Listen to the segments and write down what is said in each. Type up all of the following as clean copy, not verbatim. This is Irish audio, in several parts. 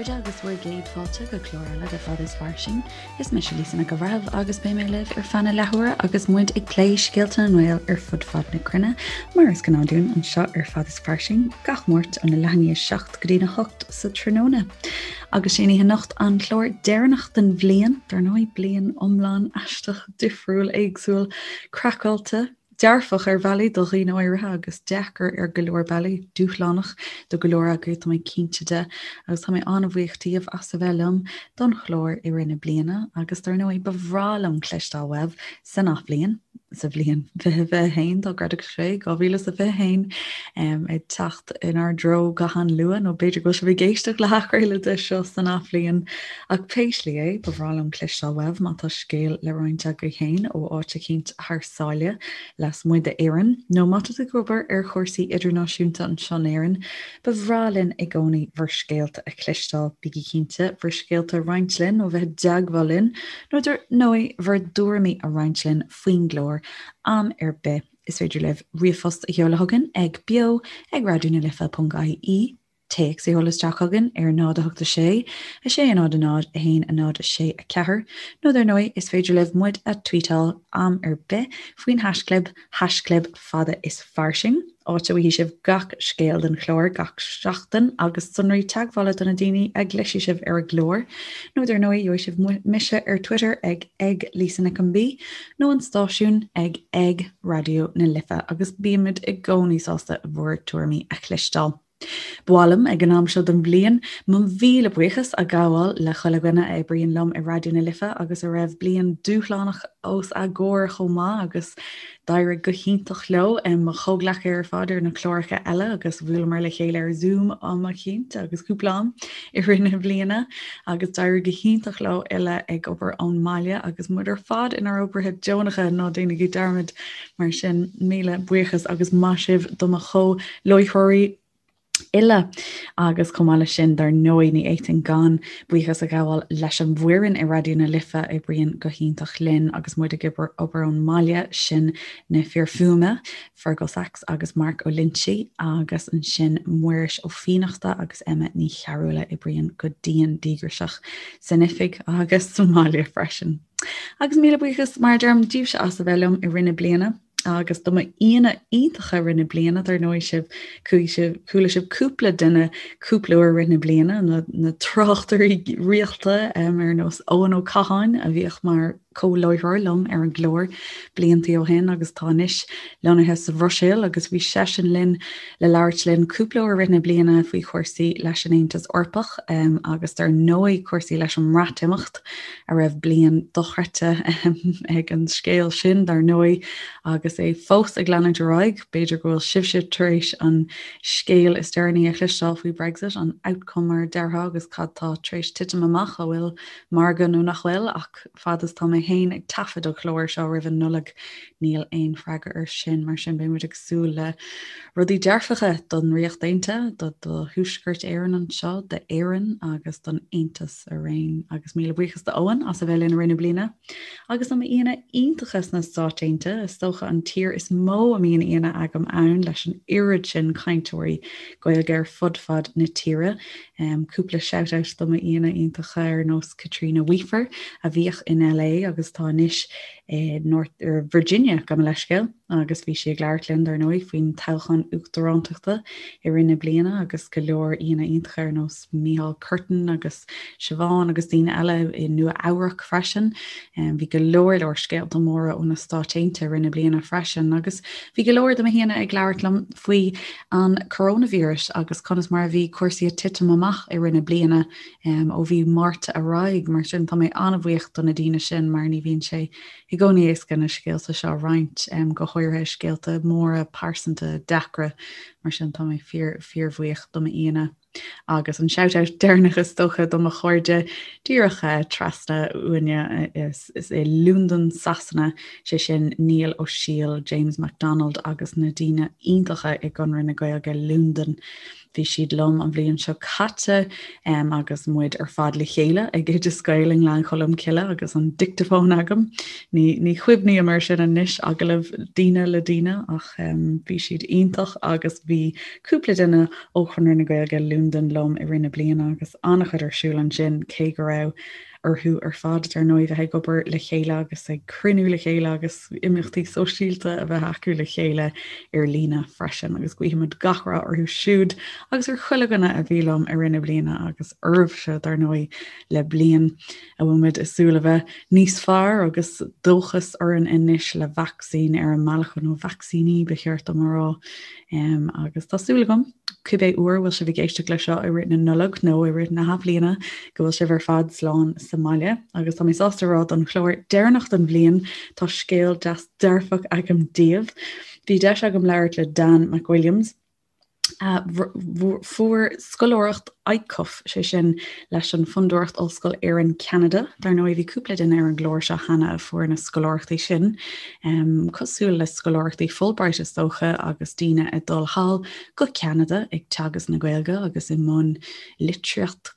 chairde agus bhur gcéad fáilte go clár eile de Fad is Fairsing. Is mise Lisa Nic an Bhreithimh agus beidh mé libh ar feadh na leathuaire agus muid ag plé scéalta na nGael ar fud fad na cruinne, mar is gnáth dúinn anseo ar Fad is Fairsing gach Máirt óna leath i ndiaidh 7 go dtína 8 sa tráthnóna. Agus sé an oíche anocht an clár deireanach den bhliain, dar ndóigh, bliain iomlán aisteach, difriúil, éagsúil, craiceáilte, Dearfach ar bhealaí do dhaoine áirithe agus deacair ar go leor bealaí, dúshlánach do go leor agaibh, tá mé cinnte de, agus tá mé an-bhuíoch díobh as a bheith liom don chlár i rith na bliana agus dar ndóigh ba bhreá liom cloisteáil uaibh san athbhliain, sa bhliain 2021 dá gcreidfeadh sé, 2021, ag teacht inár dtreo go han-luath nó b'fhéidir go bhfuil sibh ag éisteacht le hathchraoladh de seo san athbhliain ach pé slí é, ba bhreá liom cloisteáil uaibh má tá scéal le roinnt agaibh féin ó áit eicínt thar sáile lasmuigh d'Éirinn, nó má tá tú ag obair ar chúrsaí idirnáisiúnta anseo in Éirinn, ba bhreá linn i gcónaí bhur scéalta a chloisteáil. Bígí cinnte bhur scéalta a roinnt linn nó bheith i dteagmháil linn, nó dar ndóigh bhur dtuairimí a roinnt linn faoin gclár am ar bith. Is féidir libh ríomhphost a sheoladh chugainn ag beo ag raidionalife.ie. Téacs a sheoladh isteach chugainn ar 0 8 6 6 0 0 1 0 6 4 nó dar ndóigh is féidir libh muid a tweetáil am ar bith faoin haischlib, haischlib fada is fairsing, áit a bhfaighidh sibh gach scéal den chlár gach seachtain agus sonraí teagmhála do na daoine a gcloisfidh sibh ar an gclár. Nó dar ndóigh gheobhaidh sibh mise ar Twitter ag ag Lisa Nic an B nó an stáisiún ag ag Raidió na Life agus bímid i gcónaí sásta bhur tuairimí a chloisteáil. Ba mhaith liom, ag an am seo den bhliain, mo mhíle buíochas a ghabháil le chuile dhuine a oibríonn liom i Raidió na Life agus a raibh bliain dúshlánach os a gcomhair chomh maith agus d'éirigh go hiontach leo, mo chomhghleacaithe ar fad ar na cláracha eile agus bhuaileamar le chéile ar Zoom am eicínt agus cúpla am i rith na bliana agus d'éirigh go hiontach leo uile ag obair ón mbaile agus muid ar fad inár oibrithe deonacha, ná déanaigí dearmad. Mar sin, míle buíochas agus maith sibh do mo chomh-láithreoirí uile. Agus chomh maith leis sin, dar ndóigh, ní fhéadfainn gan buíochas a ghabháil leis an bhfoireann i Raidió na Life a oibríonn go hiontach linn agus muid ag obair ón mbaile, sin na fir fuaime, Fergal Sachs agus Mark Ó Loinsigh, agus ansin Muiris Ó Fiannachta agus Emma Ní Chearúil a oibríonn go dian díograiseach san oifig agus sa mbaile freisin. Agus míle buíochas, mar a deirim, díbhse as a bheith liom i rith na bliana agus do m'aíonna iontacha i rith na bliana, dar ndóigh sibh, chuaigh sibh, chuala sibh cúpla duine cúpla uair i rith na bliana, na, na tráchtairí rialta um, ar nós Eoin Ó Catháin a bhíodh mar comhláithreoir liom ar an gclár bliantaí ó shin agus tá anois lonnaithe sa Bhruiséil agus bhí seisean linn le labhairt linn cúpla uair i rith na bliana faoi chúrsaí leis an Aontas Eorpach agus dar ndóigh cúrsaí leis an mBreatimeacht a raibh bliain dochreidte ag an scéal sin dar ndóigh agus é fós ag leanúint ar aghaidh. B'fhéidir go bhfuil sibhse tar éis an scéal is deireanaí a chloisteáil faoi Brexit, an outcome mar a déarfá agus cad tá tar éis titim amach, an bhfuil margadh nó nach bhfuil ach fad is tá mé féin ag taifead an chláir seo roimh an Nollaig níl aon freagra air sin, mar sin beidh muid ag súil le rudaí dearfacha don Ríocht Aontaithe, do do Thuaisceart Éireann anseo, d'Éirinn agus don Aontas araon. Agus míle buíochas do Eoin as a bheith linn i rith na bliana. Agus do m'aíonna iontacha sna Stáit Aontaithe, is dócha an tír is mó a mbíonn aíonna agam ann leis an oiread sin cainteoirí Gaeilge ar fud fad na tíre. Cúpla shout out do m'aíonna iontacha ar nós Caitríona Weafer a bhíodh in LA agus atá anois i North er Virginia gabh mo leithscéal agus bhí sí ag labhairt linn dar ndóigh faoin toghchán uachtarántachta i rith na bliana agus go leor aíonna iontacha ar nós Micheál Curtin agus Siobhán agus daoine eile i Nua Eabhrac freisin. Bhí go leor leor scéalta móra ó na Stáit Aontaithe i rith na bliana freisin agus bhí go leor de mo haíonna ag labhairt liom faoi an coronavirus agus conas mar a bhí cúrsaí ag titim amach i rith na bliana ó mhí Márta ar aghaidh. Mar sin tá mé an-bhuíoch do na daoine sin mar ní bhíonn sé i gcónaí éasca na scéalta seo a roinnt, go háirithe scéalta móra pearsanta deacra. Mar sin tá mé fíor fíorbhuíoch do m'aíonna. Agus an shout-out deireanach is dócha do mo chairde díreach trasna uainne is i Londain, Sasana, sé sin Niall Ó Siail, James MacDonald agus na daoine iontacha i gConradh na Gaeilge Londain. Bhí siad liom an bhliain seo caite agus muid ar fad le chéile ag Oideas Gael i nGleann Cholm Cille agus an dicteafón agam. Ní, ní chuimhním air sin anois, agallamh daoine le daoine ach bhí siad iontach agus bhí cúpla duine ó Chonradh na Gaeilge Londain liom i rith na bliana agus an-chuid ar siúl ansin cé go raibh orthu ar fad, dar ndóigh, bheith ag obair le chéile agus ag cruinniú le chéile agus imeachtaí sóisialta a bheith acu le chéile ar líne freisin. Agus guímid gach rath orthu siúd agus ar chuile dhuine a bhí liom i rith na bliana agus oraibhse, dar ndóigh, le bliain a bhfuil muid ag súil a bheith níos fearr agus dóchas orainn anois le vacsaín ar an mbealach, nó vacsaíní ba cheart dom a rá. Agus tá súil agam, cibé uair a bhfuil sibh ag éisteacht leis seo i rith na Nollag nó i rith na hathbhliana, go bhfuil sibh ar fad slán sa mbaile. Agus tá mé sásta a rá don chlár deireanach den bhliain, tá scéal deas dearfach agam daoibh. Bhí deis agam labhairt le Dan McWilliams, a fuair scoláireacht ICUF, sé sin leis an Fondúireacht Ollscoil Éireann Ceanada. Dar ndóigh bhí cúpla duine ar an gclár seo cheana a fuair na scoláireachtaí sin, cosúil le scoláireachtaí Fulbright is dócha agus daoine ag dul thall go Ceanada ag teagasc na Gaeilge agus i mbun litríocht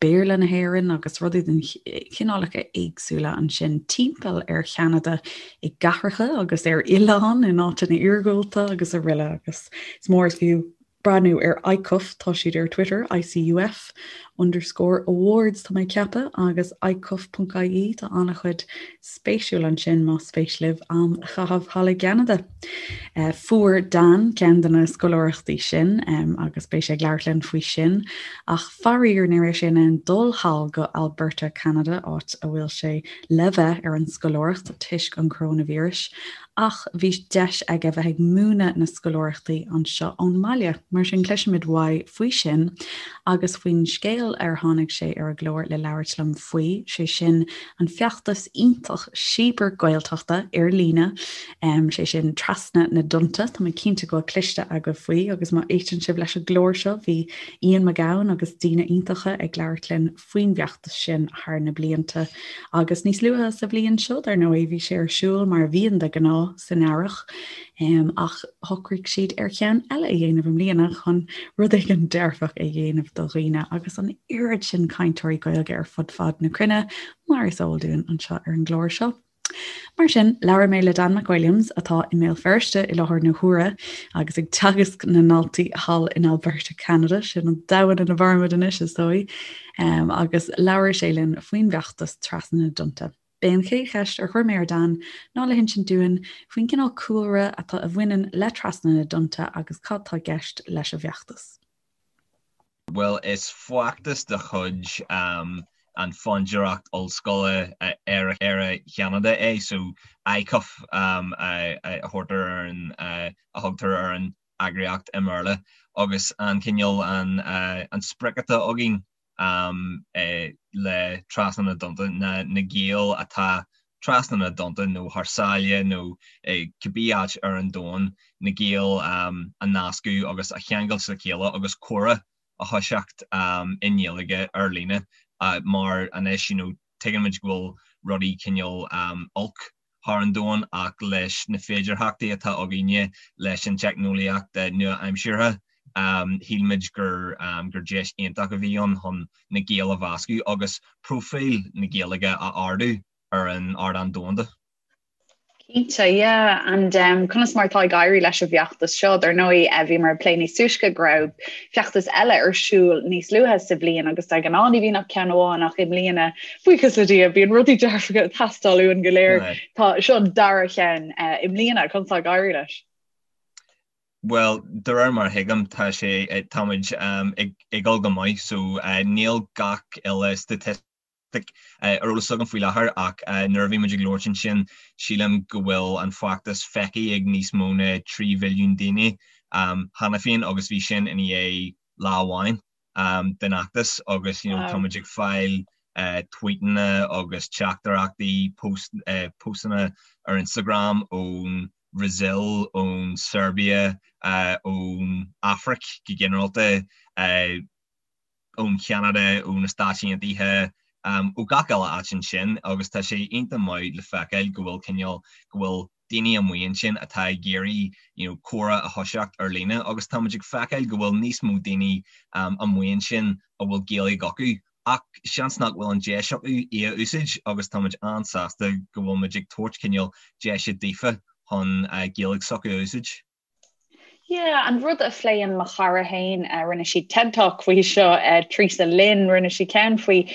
Béarla na hÉireann agus rudaí den chineálacha éagsúla ansin timpeall ar Cheanada i gcathracha agus ar oileáin in áiteanna iargúlta agus araile agus is mór is fiú breathnú ar ICUF, tá siad ar Twitter, ICUF underscore awards tá mé ag ceapadh, agus icuf.ie, tá an-chuid spéisiúil ansin más spéis libh am a chaitheamh thall i gCeanada. Fuair Dan ceann de na scoláireachtaí sin agus beidh sé ag labhairt linn faoi sin, ach faraor ní raibh sé in ann dul thall go Alberta, Ceanada, áit a bhfuil sé le bheith ar an scoláireacht toisc an choróinvíris, ach bhí deis aige bheith ag múineadh na scoláireachtaí anseo ón mbaile. Mar sin cloisfimid uaidh faoi sin agus faoin scéal ar tháinig sé ar an gclár le labhairt liom faoi, sé sin an feachtas iontach Síobar Gaeltachta ar líne, sé sin Trasna na dTonnta. Tá mé cinnte go bhfuil cloiste agaibh faoi agus má éisteann sibh leis an gclár seo bhí Ian Mac Gabhann agus daoine iontacha ag labhairt linn faoin bhfeachtas sin thar na blianta. Agus níos luaithe sa bhliain seo, dar ndóigh, bhí sé ar siúl mar a bhíonn de ghnáth san earrach, ach shocraigh siad ar cheann eile a dhéanamh i mbliana chun rud éigin dearfach a dhéanamh do dhaoine agus an oiread sin cainteoirí Gaeilge ar fud fad na cruinne, mar is eol dúinn anseo ar an gclár seo. Mar sin, labhair mé le Dan McWilliams, atá i mBéal Feirste i láthair na huaire agus ag teagasc na ndaltaí thall in Alberta, Ceanada, sin an domhan ina mhairimid anois, is dóigh, agus labhair sé linn faoin bhfeachtas Trasna na dTonnta. B'é an chéad cheist ar chuir mé ar Dan ná le hinsint dúinn faoin gcineál cúlra atá a bhaineann le Trasna na dTonnta agus cad tá i gceist leis an bhfeachtas. Bhuel, is feachtas de chuid an Fondúireacht Ollscoile Éire Cheanada é, so ICUF a thabhartar ar an, a thugtar ar an eagraíocht i mBéarla, agus an cineál, an sprioc atá againn le Trasna na dTonnta ná na Gaeil atá trasna na dtonnta nó thar sáile nó cibé áit ar an domhan, na Gaeil a nascadh agus a cheangailt le chéile agus comhrá a thoiseacht i nGaeilge ar líne mar anois you know tuigeann muid go bhfuil rudaí cineál olc thar an domhan ach leis na féidearthachtaí atá againne leis an teicneolaíocht nua-aimseartha shíl muid gur gur deis iontach a bhí ann chun na Gaeil a mheascadh agus próifíl na Gaeilge a ardú ar an ardán domhanda. Cinnte, yeah. And um, conas mar atá ag éirí leis an bhfeachtas seo? Dar ndóigh, eh, bhíomar ag plé níos túisce go raibh feachtas eile ar siúl níos luaithe sa bhliain agus de ghnáth ní bhíonn ach ceann amháin ach i mbliana, buíochas le Dia, bíonn rudaí dearfacha ag teastáil uainn go léir. Tá seo an dara cheann eh, i mbliana, conas atá ag éirí leis? Bhuel, de réir mar a thuigim, tá sé, táimid ag dul go maith, so níl gach uile staitistic ar eolas agam faoi láthair ach nuair a bhí muid ag labhairt ansin, sílim go bhfuil an feachtas feicthe ag níos mó ná 3 mhilliún daoine cheana féin agus bhí sin i ndiaidh lá amháin den fheachtas agus you know táimid ag fáil tweetanna agus teachtaireachtaí, postanna ar Instagram ón Bhrasaíl, ón Seirbia, ón Afraic go ginearálta, ón Cheanada, ó na Stáit Aontaithe, ó gach uile áit ansin agus tá sé iontach maith le feiceáil go bhfuil cineál, go bhfuil. daoine amuigh ansin atá ag iarraidh you know comhrá a thoiseacht ar líne agus tá muid ag feiceáil go bhfuil níos mó daoine amuigh ansin a bhfuil Gaeilge acu ach seans nach bhfuil an deis acu í a úsáid agus tá muid an-sásta go bhfuil muid ag tabhairt cineál deise daofa chun Gaeilge s'acu a úsáid. Yeah, an rud a phléann mo chara féin, rinne sí TED Talk faoi seo, Teresa Lynn, rinne sí ceann faoi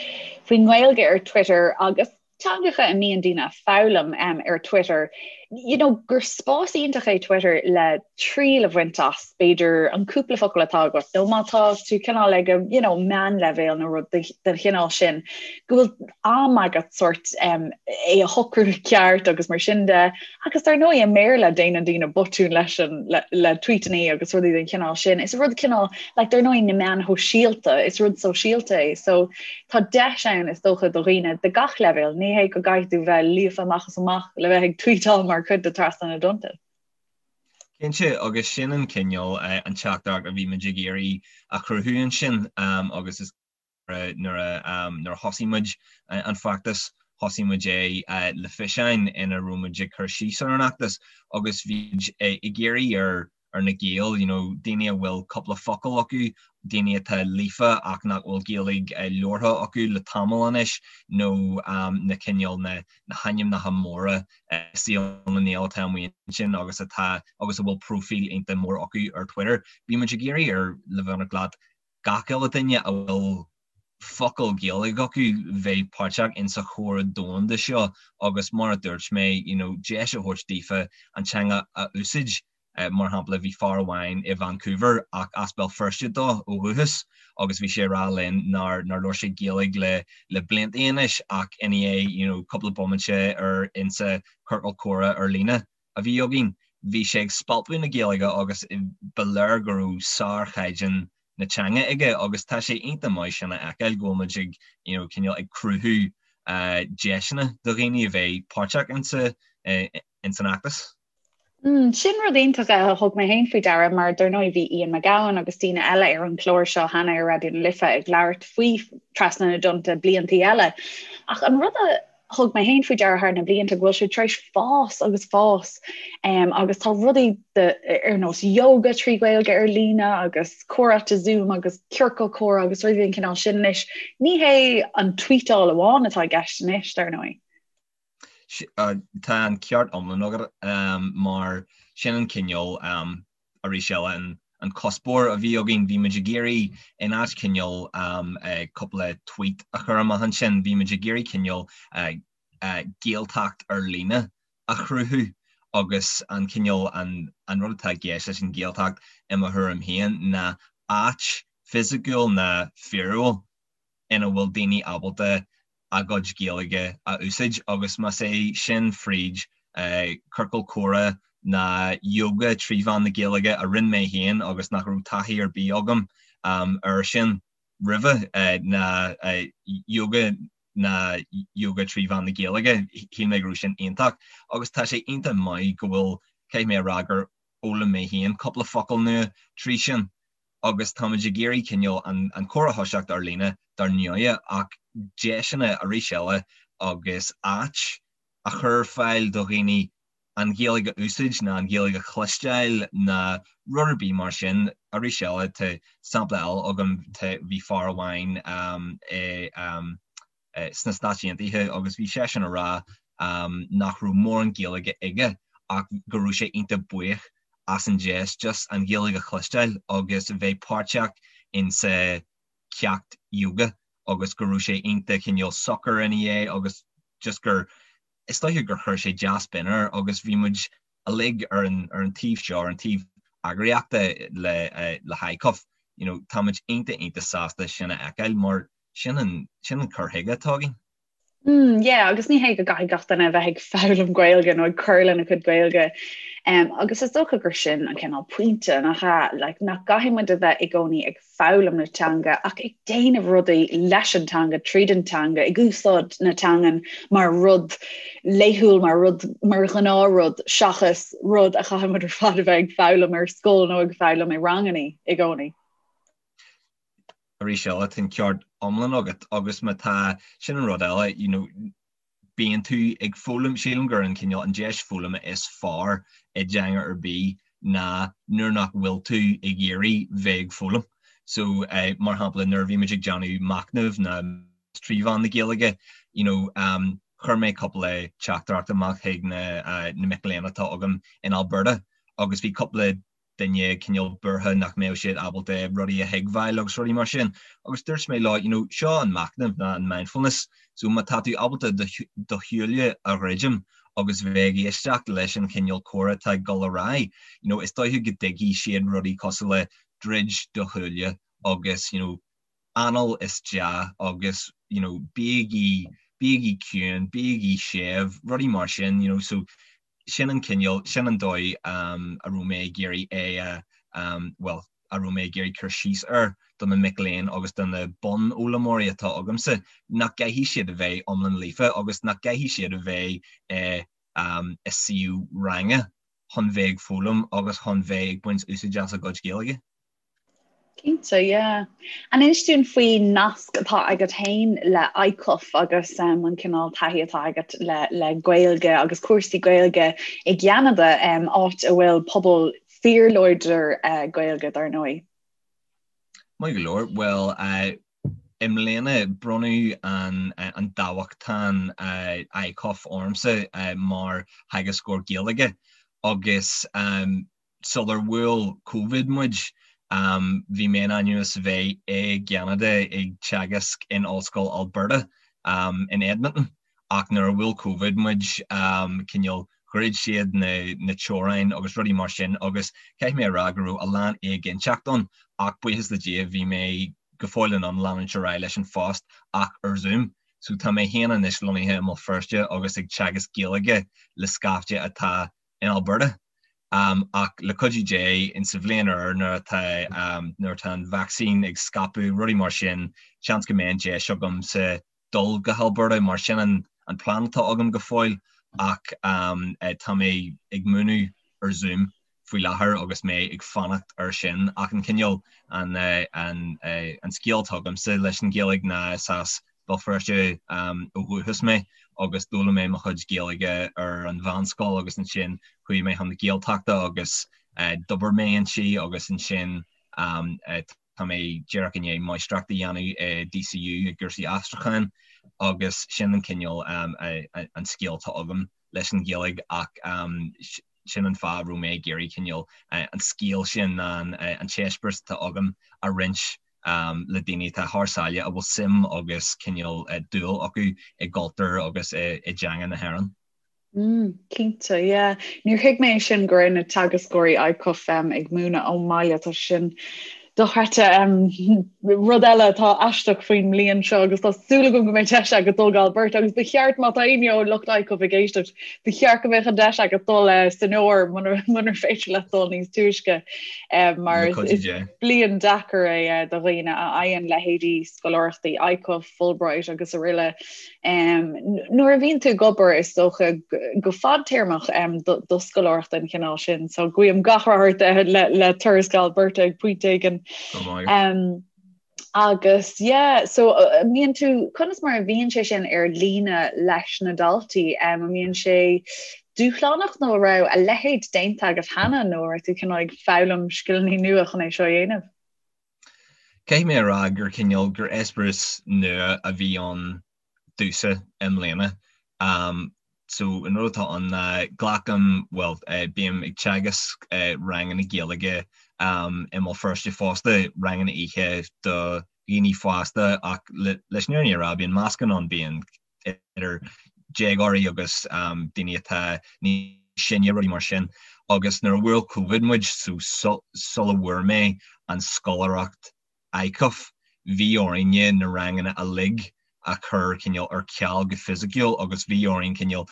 faoin nGaeilge ar Twitter agus teangacha a mbíonn daoine ag foghlaim ar Twitter, you know, gur spás iontach é Twitter le triail a bhaint as, b'fhéidir, an cúpla focal atá agat, nó má tá tú cineál ag you know, meánleibhéal nó rud den chineál sin, go bhfuil am agat sort é a shocrú ceart agus mar sin de. Agus dar ndóigh i mBéarla déanann daoine botúin leis an le le tweetanna agus rudaí den chineál sin. Is rud cineál like dar ndóigh na meáin shóisialta, is rud sóisialta é. So tá deis ann is dócha do dhaoine de gach leibhéal, ní hé go gcaithfidh tú bheith líofa amach is amach le bheith ag tweetáil mar chuid de Trasna na dTonnta. Cinnte, agus sin an cineál an teachtaireacht a bhí muid ag iarraidh a chruthú ansin agus is Nuair a thosaigh muid an feachtas, thosaigh muid é le fiseáin ina raibh muid ag cur síos ar an fheachtas agus bhí muid ag iarraidh ar ar na Gaeil, you know, daoine a bhfuil cúpla focal acu, daoine atá líofa ach nach bhfuil Gaeilge labhartha acu le tamall anois nó na cineál na na hainmneacha móra i saol na nGael atá amuigh ansin agus atá agus a bhfuil próifíl iontach mór acu ar Twitter. Bhí muid ag iarraidh ar le bheith ionraic leat gach uile duine a bhfuil focal Gaeilge acu bheith páirteach in sa chomhrá domhanda seo agus mar a dúirt mé you know deis a thabhairt daofa an teanga a úsáid. Mar shampla bhí fear amháin i Vancouver ach as Béal Feirste dó ó dhúchas agus bhí sé ag rá linn nár nár labhair sé Gaeilge le le blianta anois ach i ndiaidh you know cúpla bomaite ar insa ciorcal comhrá ar líne a bhí againn, bhí sé ag spalpadh na Gaeilge agus ba léir go raibh sárchaighdeán na teanga aige agus tá sé iontach maith sin a fheiceáil go bhfuil muid ag you know cineál ag cruthú deiseanna do dhaoine a bheith páirteach insa ins an fheachtas. Mm, sin rud iontach a thug mé féin faoi deara mar dar ndóigh bhí Ian McGowan agus daoine eile ar an chlár seo cheana ar Raidió na Life ag labhairt faoi Trasna na dTonnta bliantaí eile. Ach an rud a thug mé féin faoi deara thar na blianta go bhfuil sé tar éis fás agus fás um, agus tá rudaí de, ar nós yoga trí Ghaeilge ar líne agus comhráite Zoom agus ciorcal comhrá agus rudaí den chineál sin anois. Ní hé an tweetáil amháin atá i gceist anois, dar ndóigh. Tá an ceart iomlán agat um, mar sin an cineál um, arís eile an an cuspóir a bhí againn, bhí muid ag iarraidh in áit cineál cúpla tweet a chur amach ansin, bhí muid ag iarraidh cineál Gaeltacht ar líne a chruthú agus an cineál an an rud atá i gceist leis an Ghaeltacht i mo thuairim féin ná áit fisiciúil ná fíorúil ina bhfuil daoine ábalta a gcuid Gaeilge a úsáid agus más é sin fríd ciorcal comhrá ná yoga trí mheán na Gaeilge a rinne mé féin agus nach raibh taithí ar bith agam air sin roimhe, ná yoga ná yoga trí mheán na Gaeilge, shíl mé go raibh sin iontach agus tá sé iontach maith go bhfuil, caithfidh mé a rá gur fhoghlaim mé féin cúpla focal nua trí sin. agus táimid ag iarraidh cineál an comhrá a thoiseacht ar líne dar ndóighe ach deiseanna arís eile agus áit a chur ar fáil do dhaoine an Ghaeilge a úsáid ná an Ghaeilge a chloisteáil ná rud ar bith mar sin. Arís eile tá sampla eile agam, tá, bhí fear amháin i sna Stáit Aontaithe agus bhí seisean ag rá nach raibh mórán Gaeilge aige ach go raibh sé iontach buíoch as an deis just an Ghaeilge a chloisteáil agus bheith páirteach in sa ceacht yoga agus go raibh sé iontach cineál socair ina dhiaidh agus just gur is dóiche gur chuir sé dea-spion air agus bhí muid uilig ar an ar an taobh seo, ar an taobh eagraíochta le le hICUF, you know, tá muid iontach iontach sásta sin a fheiceáil mar sin an sin an cur chuige atá againn. Mm, yeah, agus ní hé go gcaithfidh gach duine a bheith ag foghlaim Gaeilge nó ag cur lena cuid Gaeilge. Um, agus is dócha gur sin an cineál pointe nach ea, like, nach gcaithfidh muid a bheith i gcónaí ag foghlaim na teanga ach ag déanamh rudaí leis an teanga, tríd an teanga, ag úsáid na teangan mar rud laethúil, mar rud mar ghnáthrud seachas rud a chaithfidh muid ar fad a bheith ag foghlaim ar scoil nó ag foghlaim i ranganna i gcónaí. Arís eile, tá an ceart iomlán agat agus má tá, sin an rud eile, you know, bíonn tú ag foghlaim, sílim gur an cineál, an deis foghlama is fearr i dteanga ar bith ná nuair nach bhfuil tú ag iarraidh bheith ag foghlaim. So, mar shampla, nuair a bhí muid ag déanamh machnaimh ná trí mheán na Gaeilge, you know, chuir mé cúpla teachtaireacht amach chuig na na mic léinn atá agam in Alberta agus bhí cúpla duine cineál buartha nach mbeadh siad ábalta rudaí a thuigbheáil agus rudaí mar sin. Agus dúirt mé leo, you know, seo an machnamh ná an mindfulness, so má tá tú ábalta do shúile a dhruidim agus bheith ag éisteacht leis an chineál comhrá atá ag dul ar aghaidh, you know, is dóiche go dtuigfidh siad rudaí cosúil le druid do shúile agus, you know, anáil isteach agus, you know, bígí, bígí ciúin, bígí séimh, rudaí mar sin, you know, so sin an cineál, sin an dóigh a raibh mé ag iarraidh é a, bhuel, a raibh mé ag iarraidh cur síos air do na mic léinn agus do na bunfhoghlaimeoirí atá agamsa, nach gcaithfidh siad a bheith iomlán líofa agus nach gcaithfidh siad a bheith i i suíomh ranga chun bheith ag foghlaim agus chun bheith ag baint úsáid as a gcuid Gaeilge. Cinnte, yeah. An inis dúinn faoin nasc atá agat féin le ICUF agus um, an cineál taithí atá agat le, le Gaeilge agus cúrsaí Gaeilge i gCeanada, um, áit a bhfuil pobal fíorláidir uh, Gaeilge dar ndóigh. Maith go leor, bhuel, uh, i mbliana bronnadh an, uh, an dámhachtain uh, ICUF ormsa uh, mar theagascóir Gaeilge agus um, Sular bhuail Covid muid, bhí mé in ainm is a bheith i gCeanada ag teagasc in Ollscoil Alberta in Edmonton ach nuair a bhuail Covid muid, cineál dhruid siad na teorainn agus rudaí mar sin agus caithfidh mé a rá go raibh a lán éiginnteacht ann ach buíochas le Dia bhí mé go fóill in ann leanúint ar aghaidh leis an phost ach ar Zoom. So tá mé féin anois lonnaithe i mBéal Feirste agus ag teagasc Gaeilge le scaifte atá in Alberta. Ach le cuidiú Dé, in sa bhliain úr nuair atá nuair atá an vacsaín ag scaipeadh, rudaí mar sin, seans go mbeidh an deis agamsa dul go hAlberta mar sin an an plean atá agam go fóill ach tá mé ag múineadh ar Zoom faoi láthair agus mé ag fanacht ar sin. Ach an cineál an an an scéal atá agamsa leis an Ghaeilge ná is as Béal Feirste ó dhúchas mé agus d'fhoghlaim mé mo chuid Gaeilge ar an mheánscoil agus ansin chuaigh mé chun na Gaeltachta agus d'obair mé inti agus ansin tá mé díreach i ndiaidh máistreacht a dhéanamh i DCU i gcúrsaí aistriúcháin agus sin an cineál an scéal atá agam leis an Ghaeilge ach sin an fáth a raibh mé ag iarraidh cineál an scéal sin an t-eispéireas atá agam a roinnt le daoine atá thar sáile a bhfuil suim agus cineál dúil acu i gcultúr agus i dteanga na hÉireann. Mm, cinnte, yeah. Níor thuig mé sin go raibh na teagascóirí ICUF um, ag múineadh ón mbaile tá sin dochreidte um, rud eile atá aisteach faoin mbliain seo agus tá súil agam go mbeidh deis agat dul go Alberta agus ba cheart má tá éinne ó lucht ICUF ag éisteacht ba cheart go mbeadh an deis agat dul uh, san fhómhar munar féidir leat dul níos túisce um, mar is bliain deacair é do dhaoine a fhaigheann leithéidí scoláireachtaí ICUF, Fulbright agus araile. Nuair a bhíonn tú ag obair is dócha go fadtéarmach do scoláireacht den chineál sin, so guím gach rath ort le turas go Alberta ag pointe éigin. Agus yeah, so an mbíonn tú, conas mar a bhíonn sé sin ar líne leis na daltaí? An mbíonn sé dúshlánach nó an raibh a leithéid déanta agat cheana nó an raibh tú cineál ag foghlaim scileanna nua chun é seo a dhéanamh? Caithfidh mé a rá gur cineál, gur eispéireas nua a bhí ann domhsa i mbliana. So an rud atá ann ná glacaim, bhuel, bím ag teagasc ranganna Gaeilge i mBéal Feirste fosta, ranganna oíche do dhaoine fásta ach leis an fhírinne a rá bíonn meascán ann, bíonn idir déagóirí agus daoine atá níos sine, rudaí mar sin. Agus nuair a bhuail Covid muid, so sula bhfuair mé an scoláireacht ICUF, bhí orainne na ranganna uilig a chur cineál ar ceal go fisiciúil agus bhí orainn cineál,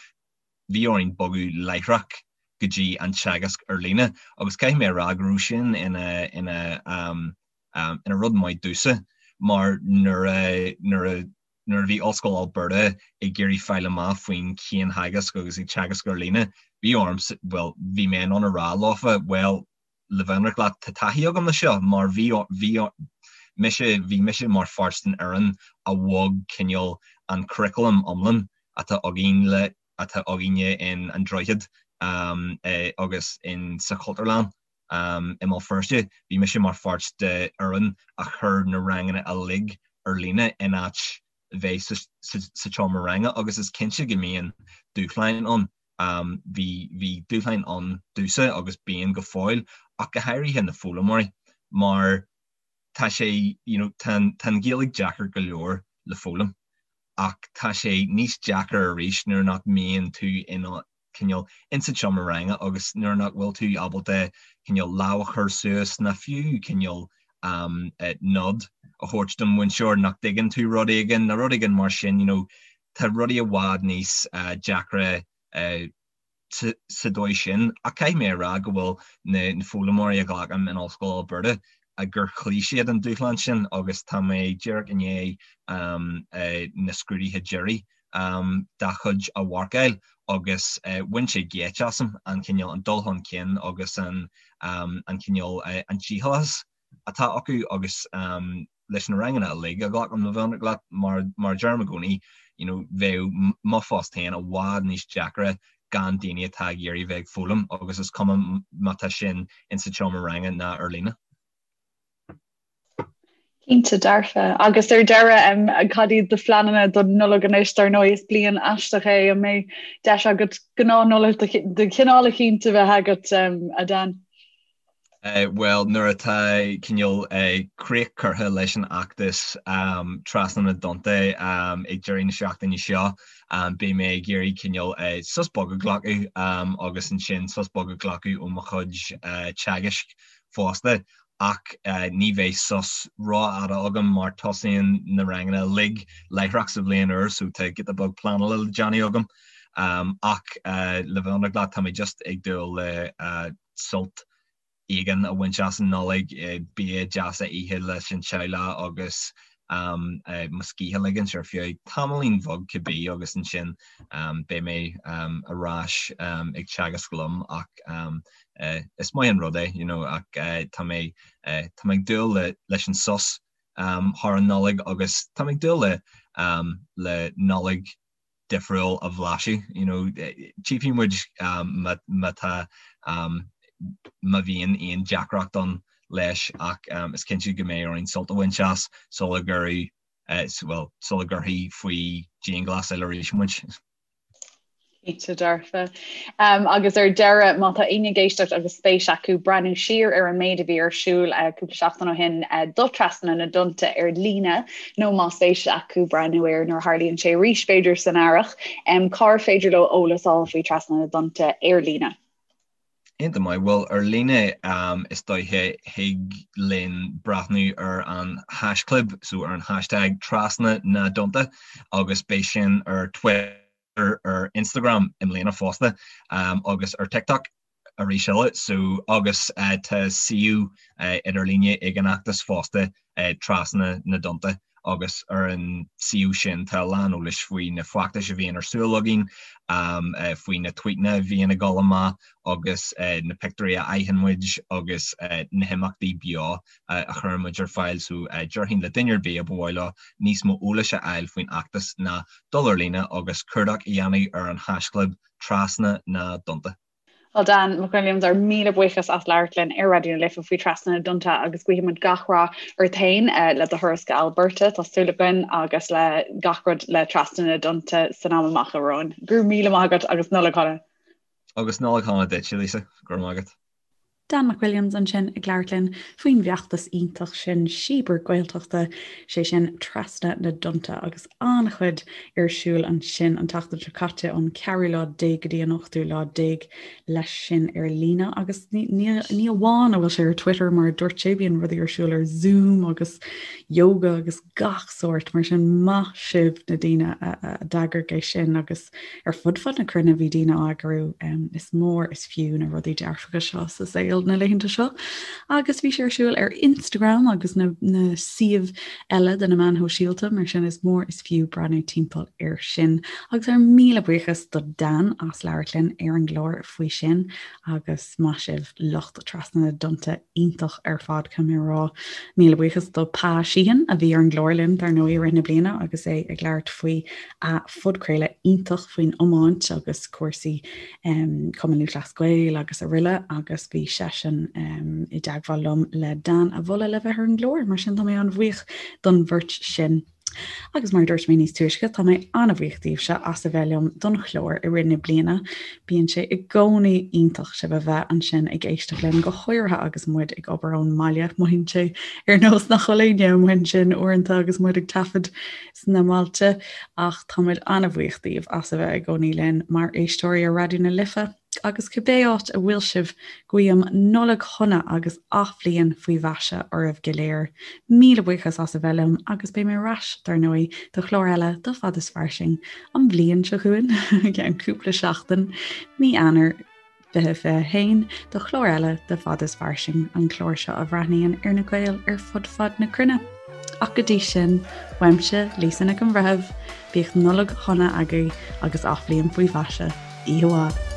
bhí orainn bogadh láithreach go dtí an teagasc ar líne. Agus caithfidh mé a rá go raibh sin ina, ina, ina rud maith domhsa mar nuair a, nuair a, Nuair a bhí Ollscoil Alberta ag iarraidh fáil amach faoin chiantheagasc agus ag teagasc ar líne, bhí orm, bhuel, bhí mé in ann a rá leofa, bhuel, le bheith ionraic leat, tá taithí agam le seo mar bhí, bhí mise, bhí mise mar pháirt den fhoireann a bhog cineál an curriculum iomlán. atá againn le atá againne in An Droichead agus in sa Chultúrlann i mBéal Feirste. Bhí mise mar pháirt de fhoireann a chuir na ranganna uilig ar líne in áit bheith sa tseomra ranga agus is cinnte go mbíonn dúshláin ann. Bhí bhí dúshláin ann domhsa agus bíonn go fóill ach go háirithe na foghlaimeoirí mar tá sé you know tá tá an Ghaeilge deacair go leor le foghlaim ach tá sé níos deacair arís nuair nach mbíonn tú in cineál insa tseomra ranga agus nuair nach bhfuil tú ábalta cineál lámh a chur suas ná fiú cineál nod a thabhairt don mhúinteoir nach dtuigeann tú rud éigin nó rud éigin mar sin you know tá rudaí i bhfad níos deacra sa dóigh sin. Ach caithfidh mé a rá go bhfuil na foghlaimeoirí a ghlacaim in Ollscoil Alberta gur chloígh siad an dúshlán sin agus tá mé díreach i ndiaidh na scrúduithe deiridh dá chuid a mharcáil agus bhain sé geit asam an cineál, an dul chun cinn agus an cineál, an dícheallachas atá acu agus leis na ranganna uilig a ghlacaim le bheith ionraic leat mar mar a deirim i gcónaí you know bheadh mo phost féin i bhfad níos deacra gan daoine atá ag iarraidh bheith ag foghlaim agus is cuma má tá sin insa tseomra ranga ná ar líne. Cinnte dearfa. Agus ar deireadh, cad iad do phleananna don Nollaig anois? Dar ndóigh is bliain aisteach é, an mbeidh deis agat gnáth-Nollaig de chineál eicínt a bheith agat, a Dan? Bhuel, nuair atá cineál críoch curtha leis an fheachtas Trasna na dTonnta ag deireadh na seachtaine seo, beidh mé ag iarraidh cineál sos beag a ghlacadh agus ansin sos beag a ghlacadh ó mo chuid teagaisc fosta. Ach ní bheidh sos rófhada agam mar tosaíonn na ranganna uilig láithreach sa bhliain úr so tá giota beag pleanála le déanamh agam. Ach le bheith ionraic leat, tá mé just ag dúil le sult éigin a bhaint as an Nollaig, bia deas a ithe leis an teaghlach agus mo scíth a ligint ar feadh tamaillín bheag cibé agus ansin beidh mé ar ais ag teagasc liom ach is maith an rud é you know ach tá mé tá mé ag dúil le leis an sos thar an Nollaig agus tá mé ag dúil le le Nollaig difriúil a bhlaiseadh you know tchífidh muid má má tá má bhíonn aon deacracht ann leis ach is cinnte go mbeidh orainn sult a bhaint as sula gcuirfidh bhuel sula gcuirfí faoi dianghlasáil arís muid. Cinnte dearfa. Agus ar deireadh, má tá éinne ag éisteacht agus spéis acu breathnú siar ar an méid a bhí ar siúl cúpla seachtain ó shin do Trasna na dTonnta ar líne, nó má spéis acu breathnú air nuair a tharlaíonn sé arís, b'fhéidir san earrach, cár féidir leo eolas a fháil faoi Trasna na dTonnta ar líne? Iontach maith. Bhuel, ar líne is dóiche thig linn breathnú ar an haischlib, so ar an hashtag Trasna na dTonnta agus beidh sin ar Twitter, ar Instagram i mbliana fosta agus ar TikTok arís eile. So agus tá suíomh idirlíne ag an fheachtas fosta Trasna na dTonnta agus ar an suíomh sin tá a lán eolais faoi na feachtais a bhíonn ar siúl againn, faoi na tvuíteanna a bhíonn ag dul amach agus na pictiúirí a fhaigheann muid agus na himeachtaí beo a chuireann muid ar fáil. So déarfainn le duine ar bith a ba mhaith leo níos mó eolais a fháil faoin fheachtas ná dul ar líne agus cuardach a dhéanamh ar an haischlib Trasna na dTonnta. Bhuel Dan McWilliams, ár míle buíochas as labhairt linn ar Raidió na Life faoi Trasna na dTonnta agus guímid gach rath ort féin le do thuras go Alberta, tá súil againn agus le gach rud le Trasna na dTonnta san am amach romhainn. Go raibh míle maith agat agus Nollaig shona. Agus Nollaig shona duit, Lisa. Go raibh maith agat. Dan McWilliams ansin ag labhairt linn faoin bhfeachtas iontach sin Síobar Gaeltachta, sé sin Trasna na dTonnta agus an-chuid ar siúl ansin an tseachtain seo caite ón ceathrú lá déag go dtí an ochtú lá déag leis sin ar líne agus ní ní amháin a bhfuil sé ar Twitter mar a dúirt sé bíonn rudaí ar siúl ar Zoom agus yoga agus gach sórt mar sin maith sibh na daoine a d'eagraigh é sin agus Ar fud fad na cruinne bhí daoine á eagrú. Is mór is fiú na rudaí dearfacha seo sa saol. Gael na laethanta seo. Agus bhí sé ar siúl ar Instagram agus na na suímh eile de na meáin shóisialta, mar sin is mór is fiú breathnú timpeall air sin. Agus ár míle buíochas do Dan as labhairt linn ar an gclár faoi sin agus maith sibh lucht Trasna na dTonnta iontach ar fad caithfidh mé a rá. Míle buíochas do Pa Sheehan a bhí ar an gclár linn dar ndóigh i rith na bliana agus é ag labhairt faoi a phodchraoladh iontach faoin iomáint agus cúrsaí um, Cumann Lúthchleas Gael agus araile agus bhí seisean um, i dteagmháil liom le Dan a mholadh le bheith ar an gclár, mar sin tá mé an-bhuíoch don bheirt sin. Agus mar a dúirt mé níos túisce, tá mé an-bhuíoch daoibhse as a bheith liom don chlár i rith na bliana. Bíonn sé i gcónaí iontach sibh a bheith ansin ag éisteacht linn, go háirithe agus muid ag obair ón mbaile. Mothaíonn sé ar nós nach bhfuil éinne amuigh ansin uaireanta agus muid ag taifead sna mbailte, ach tá muid an-bhuíoch daoibh as a bheith i gcónaí linn mar éisteoirí ar Raidió na Life. Agus cibé áit a bhfuil sibh, guím Nollaig shona agus athbhliain faoi mhaise oraibh go léir. Míle buíochas as a bheith liom agus beidh mé ar ais, dar ndóigh, do chlár eile de Fad is Fairsing an bhliain seo chugainn, i gceann cúpla seachtain, mí Eanáir 2021, do chlár eile de Fad is Fairsing, an clár seo a bhreathnaíonn ar na Gaeil ar fud fad na cruinne. Ach go dtí sin, uaimse, Lisa Nic an Bhreithimh, bíodh Nollaig shona agaibh agus athbhliain faoi mhaise. Oíche mhaith.